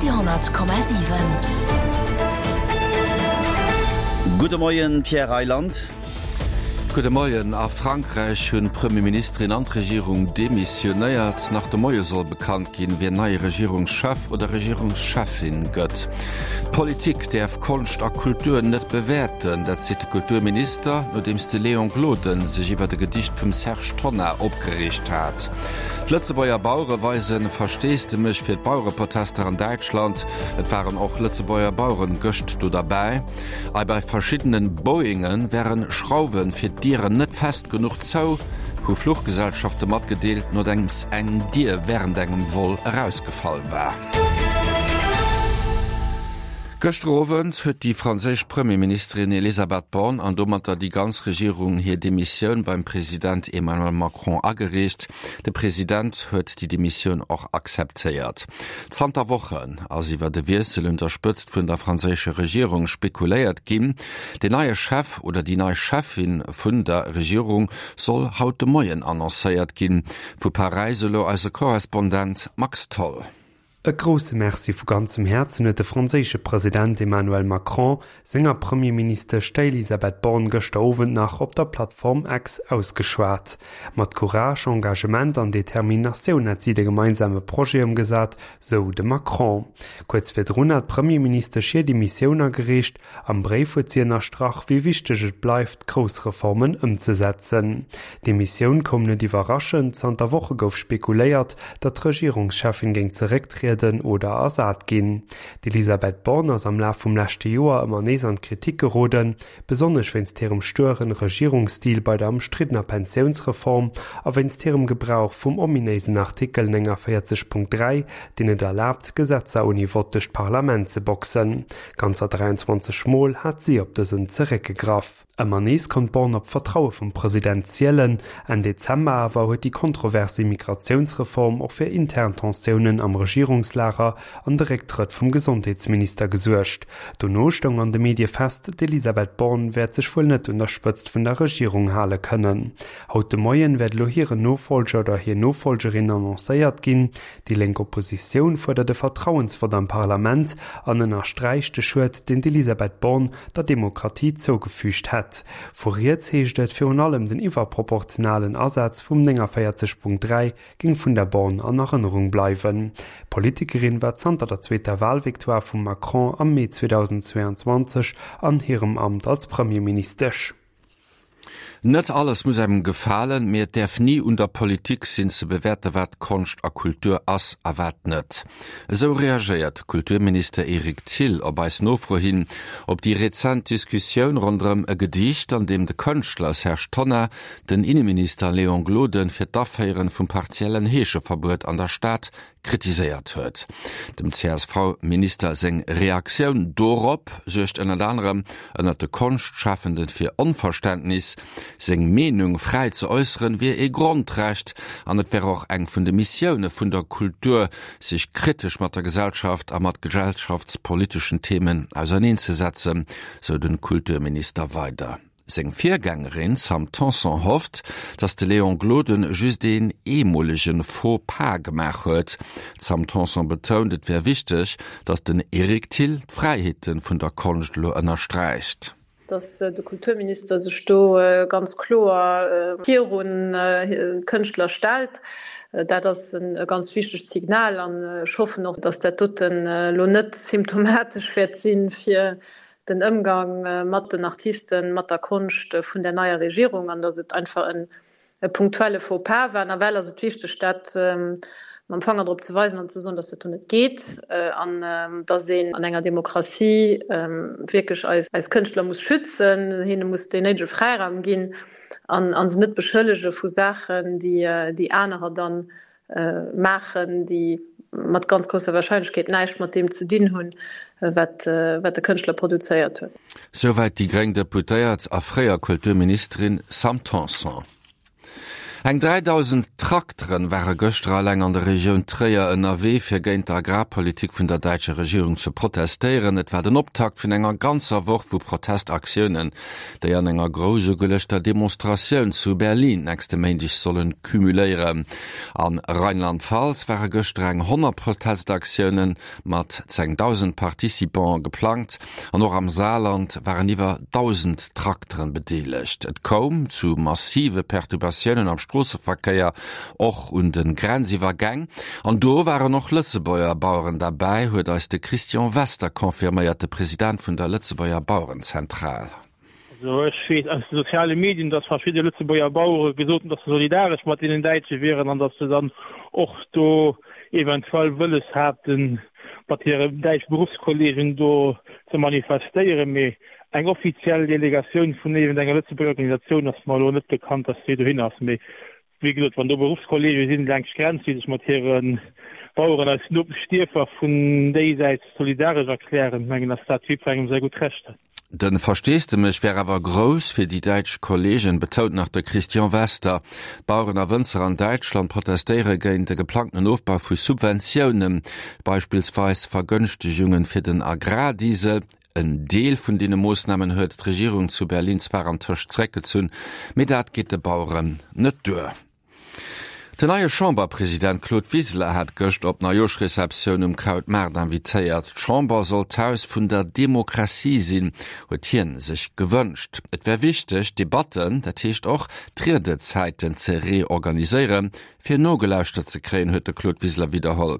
Radio 10,7. Gudde Moien, Pierre Reyland. Gudde Moien. A Frankräich hunn d'Premierministerin an d'Regierung demissionéiert. Nach de Moie soll bekannt ginn, wien neie Regierungschef oder Regierungscheffin gëtt. D'Politik däerf Konscht a Kultur net bewäerten, dat seet de Kulturminister, nodeems de Léon Gloden sech iwwert e Gedicht vum Serge Tonnar opgereegt hat. D'Lëtzebuerger Bauere weise Versteesdemech fir d'Bauereprotester an Däitschland. Et waren och Lëtzebuerger Baueren gëscht do derbäi. Ei bei verschiddene Boeinge wäre Schrauwe fir d'Dieren net fest genuch zou, hu Fluchgesellschafte matgedeelt, nodeems eng Dier wärend engem Vol erausgefall war. Gëschter Owend huet déi franséisch Premierministerin Elisabeth Borne an domatter déi ganz Regierung hir Demissioun beim President Emmanuel Macron agereecht. De President huet déi Demissioun och akzeptéiert. Zanter Wochen ass iwwer e Wiessel un der Spëtzt vun der franséischer Regierung spekuléiert ginn. Den neie Chef oder déi nei Cheffin vun der Regierung soll haut de Moien annoncéiert ginn. Vu Paräis elo eise Korrespondent Max Tholl. E grousse Merci vu ganzem Häerzen huet de franséische President Emmanuel Macron senger Premierministesch, der Elisabeth Borne, gëschter Owend nach op der Plattform X ausgeschwat. Mat Courage, Engagement an Determinatioun hätt si de gemeinsame Projet ëmgesat, sou de Macron. Kuerz virdrun hat d'Premierministesch hir Demissioun agereecht Am Bréif huet si ënnerstrach, wéi wichteg et bleift, grouss Reformen ëmzesetzen. D'Demissioun koum net iwwerraschend, zanter Woche gouf spekuléiert, datt d'Regierungscheffin géing zerécktrieden oder ersat ginn. D'Elisabeth Borne ass am Laf vum leschte Joer ëmmer nees an d'Kritik geroden, besonnesch wéinst hirem stueren Regierungsstil bei der ëmstriddener Pensiounsreform a wéinst hirem Gebrauch vum ominéisen Artikel 49.3, deen et erlaabt, Gesetzer ouni Vott duerch d'Parlament ze boxen. Ganzer 23 Mol hat si op dësen zeréckgegraff. Ëmmer nees konnt d'Borne op d'Vertraue vum President zielen. Enn Dezember awer huet déi kontrovers Immigratiounsreform och fir intern Tensiounen am Regierungslager an de Récktrëtt vum Gesondheetsminister gesuergt. Dono stoung an de Medie fest, d'Elisabeth Borne wäert sech wuel net un der Spëtzt vun der Regierung hale kënnen. Haut de Moien wäert elo hiren Nofollger oder hir Nofollgerin annoncéiert ginn. Déi lénk Oppositioun fuerdert e Vertrauensvott am Parlament an ënnersträicht de Schued, deen d'Elisabeth Borne der Demokratie zougefügt hätt. Vu riets heescht et, virun allem den iwwerproportionalen Asaz vum 49.3 géing vun der Borne an Erënnerung bleiwen. D'Politikerin war zanter der zweeter Walvictoire vum Macron am Mee 2022 an hirem Amt als Premierministesch. Net alles muss engem gefalen, mee et däerf ni un der Politik sinn ze bewäerte wat Konscht a Kultur ass a wat net. Esou reagéiert de Kulturminister Eric Thill op eis Nofro hin op déi rezent Diskussioun ronderëm e Gedicht, an deem de Kënschtler Serge Tonnar den Inneminister Léon Gloden fir d'Aféieren vum partiellen Heescheverbuet an der Stad kritiséiert huet. Dem CSV-Minister seng Reaktioun dorop suergt ënnert anerem ënnert de Konschtschafende fir Onverständnis. Seng Meenung fräi ze äusseren wier ee Grondrecht an et wär och eng vun de Missioune vun der Kultur, sech kritesch mat der Gesellschaft a mat gesellschaftspoliteschen Themen auserneenzesetzen, sou de Kulturminister weider. Seng Virgängerin Sam Tanson hofft, datt de Léon Gloden just een eemolege Faux pas gemaach huet. D'Sam Tanson betount, et wär wichteg, datt den Eric Thill d'Fräiheete vun der Konscht elo ënnersträicht. Datt de Kulturminister sech do ganz kloer virun d'Kënschtler stellt, dat ass e ganz wichtegt Signal. An ech hoffen och, datt dat doten elo net symptomatesch wäert si fir den Ëmgang mat den Artisten, mat der Konscht vun der neier Regierung an datt et einfach e punktuelle Faux-pas war. Nawell ass et wichteg, dat mam Fanger drop ze weisen an ze soen, datt dat do net geet an datt een an enger Demokratie wierklech eis Kënschtler muss schützen, hinne muss deen néidege Fräiraum ginn an se net beschëllege vu Saachen, déi anerer dann maachen, déi mat ganz grousser Warscheinlechkeet näischt mat deem ze dinn hunn, wat de Kënschtler produzéiert huet. Souwäit déi gréng Deputéiert a fréier Kulturministerin Sam Tanson. Eng 3.000 Trakteren ware gëschter eleng an der Regioun Tréier ënnerwee, fir géint d'Agrarpolitik vun der däitscher Regierung ze protestéieren. Et war den Optakt vun enger ganzer Woch vu Protestaktiounen, déi an enger grouss ugeluechter Demonstratioun zu Berlin nächste Méindeg sollen cumuléieren. A Rheinland-Pfalz ware gëschter eng 100 Protestaktiounen mat 10.000 Participante geplangt an och am Saarland waren iwwer 1.000 Trakteren bedeelegt. Et koum zu massive Perturbatiounen am Stroosseverkéier, och un de Grenziwwergäng. An do waren och Lëtzebuerger Baueren derbäi, huet eis de Christian Wester confirméiert, de President vun der Lëtzebuerger Bauerenzentral. Also ech weess aus de soziale Medien, datt verschidde Lëtzebuerger Bauere gesot hunn, datt se solidaresch mat deenen Däitsche wieren an datt se dann och do eventuell wëlles haten, mat hire däitsche Beruffskollegen do ze manifestéieren. Mee eng offiziell Delegatioun vun iergendenger Lëtzebuerger Organisatioun ass mer elo net bekannt, datt déi dohin ass. Mee Wéi gesot, wann do Beruffskolleege sinn laanscht d'Grenz, déi sech mat hire Baueren aus Nopeschdierfer vun déisäits solidaresch erklären, mengen ass dat jiddwerengem säi gutt Recht. De Versteesdemech wär awer grouss fir déi däitsch Kolleegen, betount nach de Christian Wester. D'Baueren a Wënzer an Däitschland protestéiere géint de geplangtenen Ofbau vu Subventiounen, beispillsweis Vergënschtegungen fir den Agrardiesel. En Deel vun deene Moossnamen huet d'Regierung zu Berlin zwar antëscht zeréckgezunn, mee dat geet de Baueren net duer. Den neie Chamberpresident Claude Wiseler hat gëscht op d'Neijoerschreceptioun um Krautmaart invitéiert. D'Chamber soll d'Haus vun der Demokratie sinn, huet hien sech gewënscht. Et wär wichteg, d'Debatten, dat heescht och d'Riedezäiten ze reorganiséieren, Fir nogelauschtert ze kréien, huet de Claude Wiseler widderholl.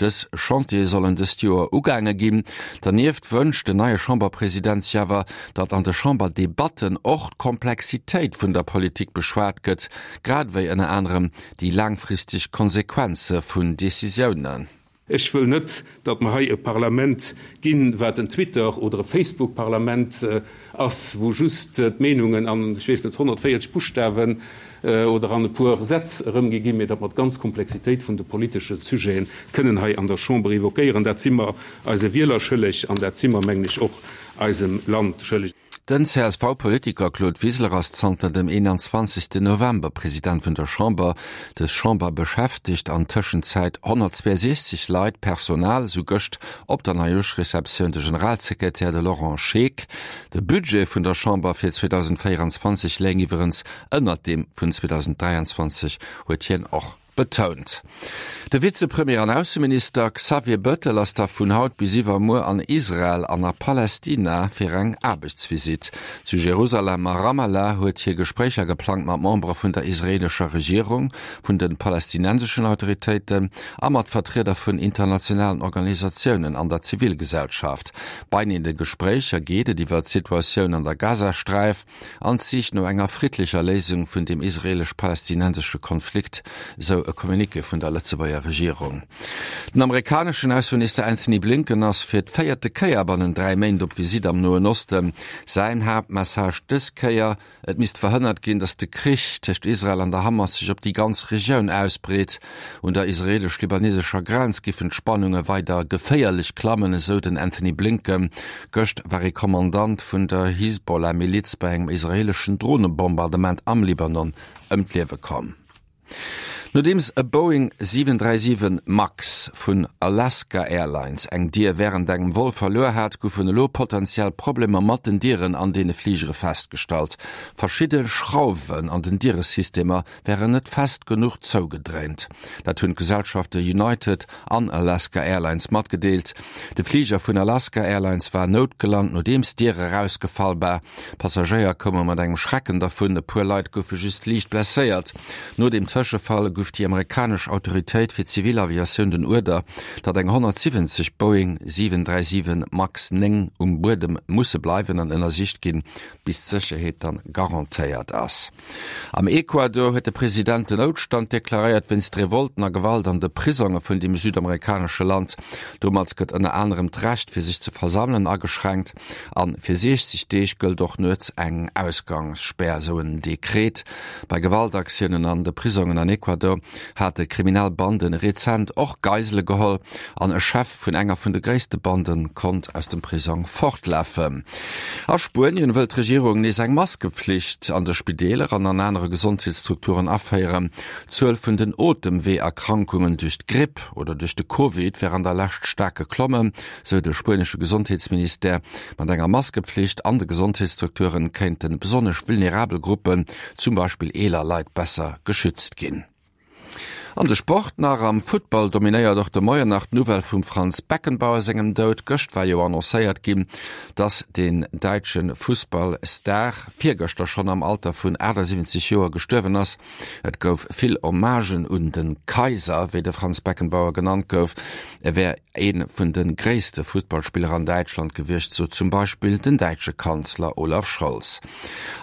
Dës Chantiere sollen dëst Joer ugaange ginn. Dernieft wënscht den neie Chamberpresident sech awer, datt an de Chamberdebatten och d'Komplexitéit vun der Politik beschwat gëtt, grad ewéi ënner anerem déi laangfristeg Konsequenze vun Decisiounen. Ech wëll net, datt mer hei e Parlament ginn, wat en Twitter oder e Facebook-Parlament ass, wou just d'Meenungen an, ech weess net, 140 Buschtawen oder an e puer Sätz erëmgi ginn, mee datt mer d'ganz Komplexitéit vun de politesche Sujete kënnen hei an der Chamber évoquéieren. Dat si mer eise Wieler schëlleg an dat si mer, mengen ech, och eisem Land schëlleg. Den CSV-Politiker Claude Wiseler ass zanter dem 21 November President vun der Chamber. Dës Chamber beschäftegt an Tëschenzäit 162 Leit, Personal, sou gëscht op der Neijoerschreceptioun de Generalsekretär, de Laurent Scheeck. De Budget vun der Chamber fir 2024 léing iwwerens ënnert deem vun 2023, huet hien och betount. De Vizepremier an Ausseminister Xavier Bettel ass da vun haut bis iwwermuer an Israel an a Palästina fir eng Aarbechtsvisitt. Zu Jerusalem a Ramallah huet hie Gespréicher geplangt mat Membere vun der israeelescher Regierung, vun de palästinenseschen Autoritéiten a mat Vertrieder vun internationalen Organisatiounen an der Zivilgesellschaft. Bei de Gespréicher geet et iwwer d'Situatioun an der Gazasträif, an d'Sich no enger friddlecher Léisung vun dem israelesch-palästinensesche Konflikt, sou e Communiqué vun der Lëtzebuerger Regierung. Den amerikaneschen Ausseminister Anthony Blinken ass fir d'véierte Kéier bannen 3 Méint op Visitt am Noen Osten. Säin Haaptmessage dës Kéier, Et misst verhënnert ginn, datt de Krich tëscht Israel an der Hamas sech op déi ganz Regioun ausbreet. Un der israelesch-libanesescher Grenz giffen d'Spannunge weider geféierlech klammen, esou den Anthony Blinken. Gëscht war ee Kommandant vun der Hisbollah-Miliz bei engem israeeleschen Dronebombardement am Libanon ëm d'Liewe komm. Nodeems e Boeing 737 Max vun Alaska Airlines eng Dier wärend engem Vol verluer hat, goufen elo potentiell Problemer mat den Dieren an deene Fligere festgestallt. Verschidde Schrauwen an den Dieresystemer wären net fest genuch zougedréint. Dat hunn d'Gesellschafte United an Alaska Airlines matgedeelt. De Fliger vun Alaska Airlines war noutgelant, nodeems d'Dier erausgefall war. Passagéier koume mat engem Schrecken dervun, e puer Leit goufe just liicht blesséiert. No dem Tëschefall gouf déi amerikanesch Autoritéit fir Zivilaviatioun den Uerder, datt eng 170 Boeing 737 Max 9 um Buedem musse bleiwen an ënnersicht ginn, bis d'Sécherheet dann garantéiert ass. Am Ecuador huet de President den Noutstand deklaréiert wéinst Revolten a Gewalt an de Prisonge vun deem südamerikanesche Land. Domat gëtt ënner anerem d'Recht fir sech ze versammelen ageschränkt a fir 60 Deeg gëllt och nuets eng Ausgangsspär, esou en Dekret. Bei Gewaltaktiounen an de Prisongen an Ecuador. Do hate kriminell Bande rezent och Geisele geholl an e Chef vun enger vun de gréisste Bande konnt aus dem Prisong fortlafen. A Spuenien wëll d'Regierung nees eng Maskepflicht an de Spideeler an an anere Gesondheetsstrukturen aféieren. D'Zuel vun den Otemweeërkrankungen duerch d'Gripp oder duerch de Covid wär an der Lescht staark geklommen, sou de spuenesche Gesondheetsministère. Mat enger Maskepflicht an de Gesondheetsstrukturen kéinte besonnesch vulnerabel Gruppen, zum Beispill eeler Leit, besser geschützt ginn. An de Sport nach, Am Futtball dominéiert och de Moien nach d'Nouvelle vum Franz Beckenbauer sengem Doud. Gëscht war jo annoncéiert ginn, dass den däitsche Fussballstar virgëschter schonn am Alter vun 78 Joer gestuerwen ass. Et gouf vill Hommagen un de Kaiser, wéi de Franz Beckenbauer genannt gouf. E wär ee vun de gréisste Futtballspiller an Däitschland gewiescht, sot zum Beispill den däitsche Kanzler Olaf Scholz.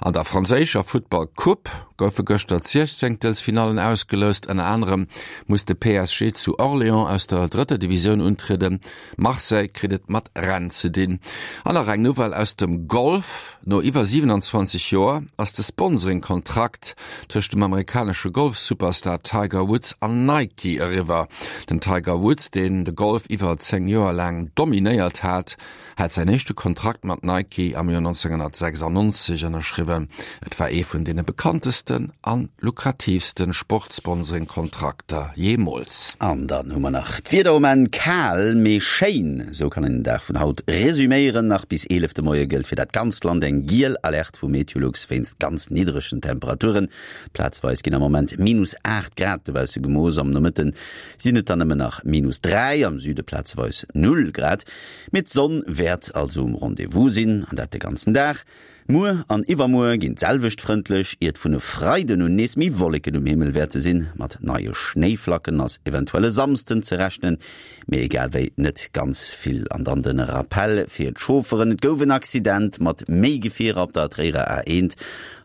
An der franséischer Futtball-Coupe goufe gëschter d'Siechzéngtelsfinallen ausgeloust. Ënner anerem muss de PSG zu Orléans aus der drëtter Divisioun untrieden. Marseille kritt et mat Rennes ze dinn. An nach eng Nouvelle aus dem Golf, No iwwer 27 Joer ass de Sponsoring-Kontrakt tëscht dem amerikanesche Golf-Superstar Tiger Woods an Nike eriwwer. Den Tiger Woods, deen de Golf iwwer 10 Joer laang dominéiert hat, hat säin éischte Kontrakt mat Nike am Joer 1996 ënnerschriwwen. Et war ee vun deene bekanntesten a lukratiivste Sportsponsoring-Kontrakter jeemools. An dann hu mer nach d'Wieder um Enn, Kal, mee schéin, esou kann een den Dag vun haut resuméieren. Nach bis 11 de Moie gëllt fir dat ganzt Land eng giel Alerte vu Meteolux wéinst ganz niddregen Temperaturen. Plazweis ginn am Moment minus 8 Grad dobausse gemooss, am Nomëtte sinn et dann nëmmen nach minus 3, am Süde plazeweis 0 Grad. Mee d'Sonn wäert also um Rendez-vous sinn, an dat de ganzen Dag. Muer an iwwermuer ginn d'selwecht frëndlech, iert vun e Freiden un nees méi Wolleken um Himmel wäerte sinn. Mat neie Schnéiflacken ass eventuell e Samsden ze rechnen, mee egal wéi net ganz vill. An dann de Rappel fir d'Chaufferen, Et gouf en Accident mat méi Gefierer op der Tréierer A1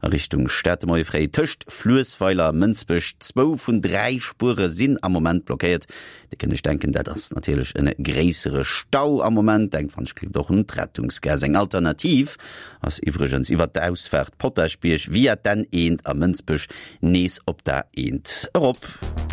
a Richtung Stad de Moie fréi tëscht Fluessweiler a Mënsbech. Zwou vun 3 Spuere sinn am Moment blockéiert. Dir kënnt iech denken, dat ass natierlech en gréissere Stau am Moment. Denkt wann ech gelift och un d'Rettungsgaass. Eng Alternativ ass iwwregens iwwert d'Ausfaart Potaschbierg via d'N1 a Mënsbech nees op d'A1 erop.